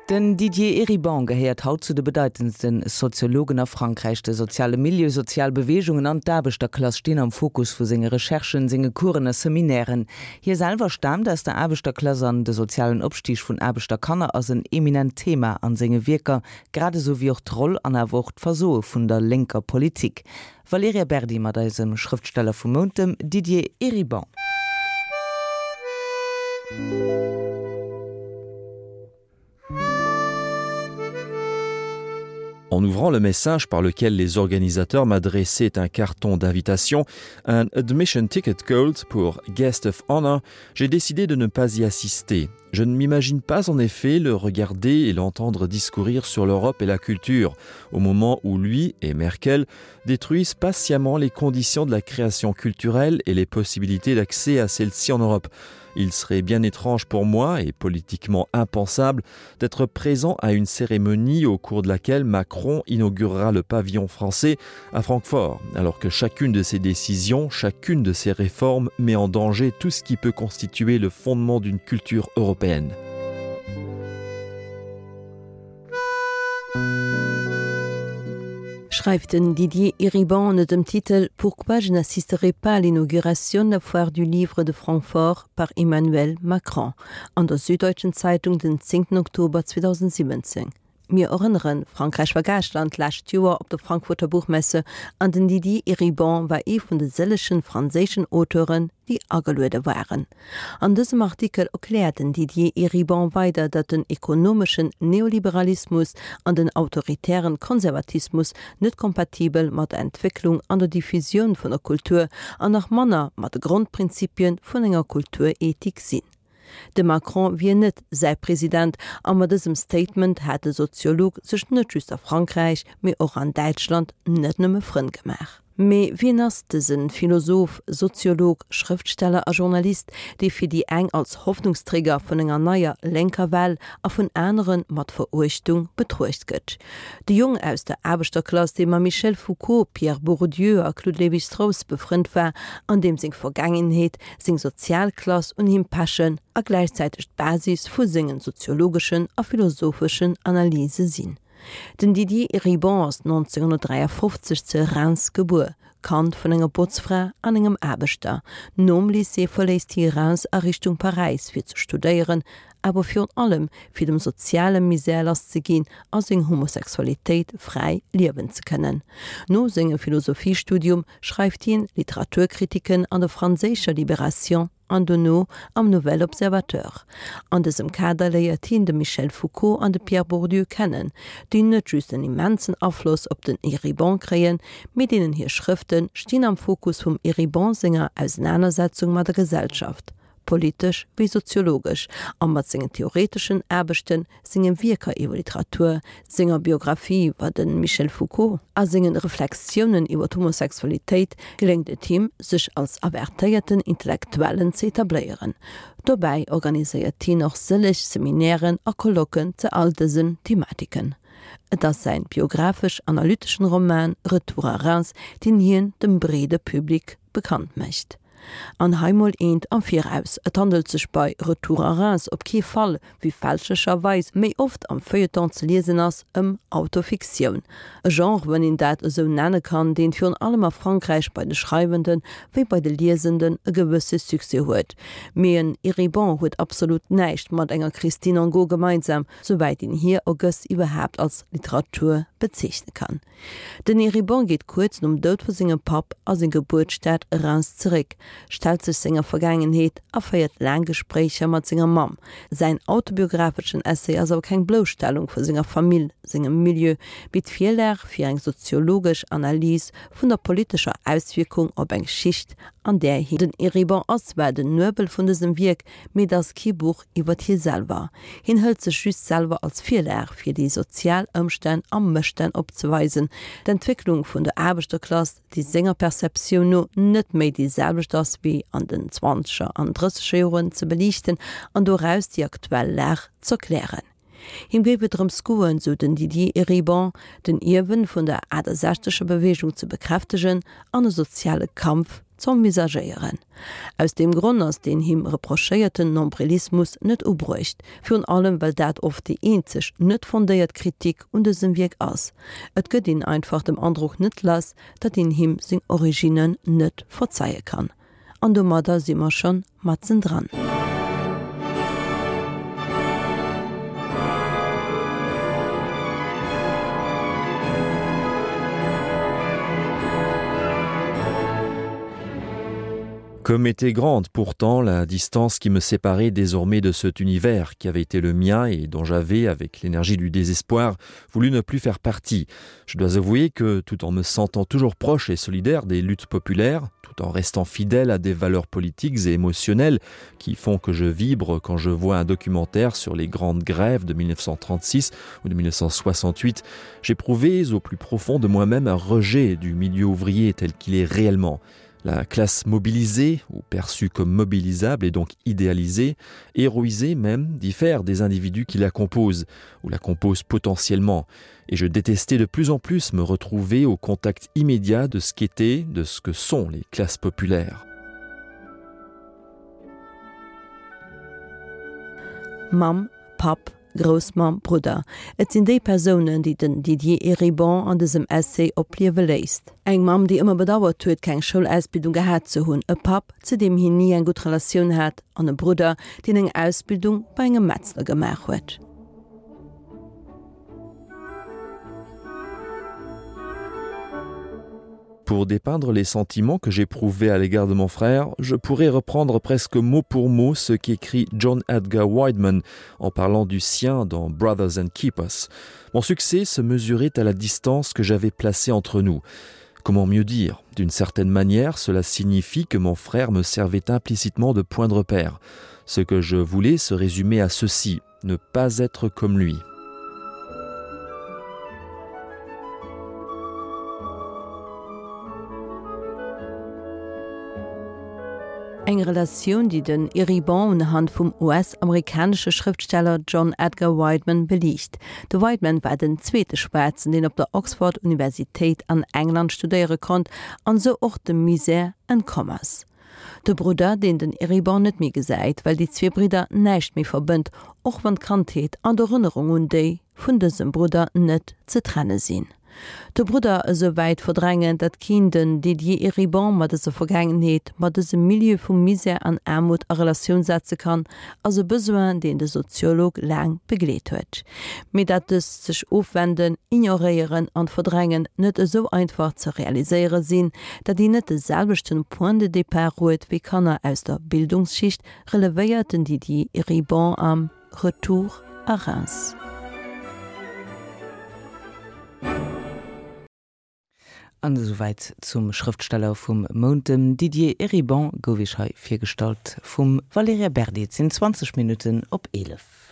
Den Didier Eribon gehéiert haut zu de bedeitendste Soziologen a Frankräich. De soziale Milieu, sozial Beweegungen an d'Aarbechterklass stinn am Fokus vu senge Recherchen, senge Coursen a Seminairen. Hie selwer staamt aus der Aarbechterklass an de sozialen Opstig vun Aarbechterkanner ass en eminent Thema an senge Wierker, grad esou wéi och d'Roll an awer och d'Versoe vun der lénker Politik. Valerija Berdi mat eisem Schrëftsteller vum Mount, dem Didier Eribon. En ouvrant le message par lequel les organisateurs m'adressaient un carton d'invitation, un admission ticket gold pour guest of honor, j'ai décidé de ne pas y assister. Je ne m'imagine pas en effet le regarder et l'entendre discourir sur l'Europe et la culture, au moment où lui et Merkel détruisent patiemment les conditions de la création culturelle et les possibilités d'accès à celle-ci en Europe. Il serait bien étrange pour moi et politiquement impensable d'être présent à une cérémonie au cours de laquelle Macron inaugurera le pavillon français à Francfort, alors que chacune de ses décisions, chacune de ses réformes met en danger tout ce qui peut constituer le fondement d'une culture européenne. Schreift den Didier Eribon ënner dem Titel Pourquoi je n'assisterai pas à l'inauguration de la foire du livre de Francfort par Emmanuel Macron an der Süddeutschen Zeitung den 10 Oktober 2017. Mir erënneren, Frankräich war Gaaschtland d'lescht Joer op der Frankfurter Buchmesse an den Didier Eribon war ee vun de sëllechen franséischen Auteuren, déi ageluede waren. An dësem Artikel erkläert den Didier Eribon weider, datt den ekonomeschen Neoliberalismus an den autoritären Konservatismus net kompatibel mat der Entwécklung an der Diffusioun vun der Kultur an nach manner mat de Grondprinzipien vun enger Kulturethik sinn. De Macron wier net säi President a mat dësem Statement hat de Soziolog sech net just a Frankräich, mee och an Däitschland net nëmme Frënn gemaach. Mee wien ass dëse Philosoph, Soziolog, Schrëftsteller a Journalist, dee fir déi eng als Hoffnungsträger vun enger neier lénker Well a vun anere mat Veruechtung betruecht gëtt? De Jong aus der Aarbechterklass, dee mam Michel Foucault, Pierre Bourdieu a Claude Lévi-Strauss befrënnt war an deem seng Vergaangenheet, seng sozial Klass un him pechen a gläichzäiteg d'Basis vu sengen soziologeschen a philosopheschen Analyse sinn. Den Didier Eribon ass 1953 ze Reims gebuer, Kand vun enger Botzfra an engem Aarbechter. Nom Lycée verléisst hie Reims a Richtung Paräis fir ze studéieren, awer virun allem fir dem soziale Misär lass ze ginn a seng Homosexualitéit fräi liewen ze kënnen. No sengem Philosophiestudium schreift hien Literaturkritiken an der franséischer Libération. an dono am Nouvel Observateur. An dësem Kader léiert hien de Michel Foucault an de Pierre Bourdieu kennen, déi net just en immensen Afloss op den Eribon kréien, mee deenen hir Schrëfte stinn am Fokus vum Eribon senger Ausenanersetzung mat der Gesellschaft, politesch wéi soziologesch, a mat sengen theoreteschen Aarbechten senge Wierker iwwer Literatur, senger Biographie iwwer de Michel Foucault a sengen Reflexiounen iwwer d'Homosexualitéit geléngt et him, sech als avertéierten Intellektuellen ze etabléieren. Dobäi organiséiert hien och sëlleg Seminairen a Colloquen ze all dësen Thematiken. Et ass säin biographesch-analyteschen Roman Retour à Reims, deen hien dem breede Public bekannt mécht. An hei mol eent am Viraus, Et handelt sech bei Retour à Reims op kee Fall, wéi fälschlecherweis méi oft am Feuilleton ze liesen ass, ëm Autofiktioun. E Genre, wann een dat esou nenne kann, deen virun allem a Frankräich bei de Schreiwenden wéi bei de Liesenden e gewësse Succès huet. Mee en Eribon huet absolut näischt mat enger Christine Angot gemeinsam, souwäit een hir Ergëss iwwerhaapt als Literatur bezeechne kann. Den Eribon geet kuerz nom Doud vu sengem Papp a seng Gebuertsstad Reims zeréck, stellt sech senger Vergaangenheet a féiert laang Gespréicher mat senger Mamm. Säin autobiographeschen Essay ass awer keng Blousstellung vu senger Famill, sengem Milieu, mee d'Virlag fir eng soziologesch Analys vun der politescher Auswierkung op eng Schicht, an där hien. Den Eribon ass zwar den Nuebel vun dësem Wierk, mee et ass kee Buch iwwert hie selwer. Hien hëlt sech just selwer als Virlag, fir déi sozial Ëmstänn a Mësstänn opzeweisen, d'Entwécklung vun der Aarbechterklass, déi senger Perceptioun no net méi déi selwecht ass wéi an den zwanzeger an drësseger Joren, ze beliichten an doraus déi aktuell Lag z'erklären. Him géif et drëms goen, sou den Didier Eribon, den Ierwen vun der 68er Beweegung ze bekräftegen an e soziale Kampf. z'envisagéieren. Aus deem Gronn ass deen him reprochéierten Nombrilismus net ubruecht, virun allem well dat oft déi eenzeg net fondéiert Kritik un dësem Wierk ass. Et gëtt een einfach dem Androck net lass, datt een him seng Originnen net verzeie kann. An domadder si mer schonn matzendran. Comme était grande pourtant la distance qui me séparait désormais de cet univers qui avait été le mien et dont j'avais, avec l'énergie du désespoir, voulu ne plus faire partie. Je dois avouer que, tout en me sentant toujours proche et solidaire des luttes populaires, tout en restant fidèle à des valeurs politiques et émotionnelles qui font que je vibre quand je vois un documentaire sur les grandes grèves de 1936 ou de 1968, j'éprouvais au plus profond de moi-même un rejet du milieu ouvrier tel qu'il est réellement. La classe mobilisée ou perçue comme mobilisable et donc idéalisée, héroïsée même, diffère des individus qui la composent ou la composent potentiellement. Et je détestais de plus en plus me retrouver au contact immédiat de ce qu'étaient, de ce que sont les classes populaires. Mamm, Papp, Groussmamm, Brudder, et sinn déi Persounen, déi den Didier Eribon an dësem Essay opliewe léisst. Eng Mamm, déi ëmmer bedauert huet, keng Schoulausbildung gehat ze hunn, e Papp, zu deem hien ni eng gutt Relatioun hat, an e Brudder, deen eng Ausbildung bei engem Metzler gemaach huet. Pour dépeindre les sentiments que j'éprouvais à l'égard de mon frère, je pourrais reprendre presque mot pour mot ce qu'écrit John Edgar Wideman en parlant du sien dans Brothers and Keepers. Mon succès se mesurait à la distance que j'avais placée entre nous. Comment mieux dire D'une certaine manière, cela signifie que mon frère me servait implicitement de point de repère. Ce que je voulais se résumer à ceci, ne pas être comme lui. Eng Relatioun, déi den Eribon unhand vum US-amerikanesche Schrëftsteller John Edgar Wideman beliicht. De Wideman war den zweete Schwaarzen, deen op der Oxford Universitéit an England studéiere konnt an esou och dem Misär entkomm ass. De Brudder, deen den Eribon net méi gesäit, well déi zwee Bridder näischt méi verbënnt, och wann d'Kandheet an d'Erënnerung un déi vun dësem Brudder net ze trenne sinn. De Brudder esou wäit verdrängen, datt keen den Didier Eribon mat dëser Vergaangenheet, mat dësem Milieu vu Misär an Aarmut a Relatioun setze kann, ass e Besoin, deen de Soziolog laang begleet huet. Mee dat dëst sech ofwenden, ignoréieren an verdrängen net esou einfach ze realiséiere sinn, dat een net de selwechten Point de départ huet wéi Kanner aus der Bildungsschicht, relevéiert den Didier Eribon am Retour à Reims. An esouwäit zum Schrëftsteller vum Mount, dem Didier Eribon, gouf Iech hei virgestallt vum Valerija Berdi. Et sinn 20 Minutten op 11.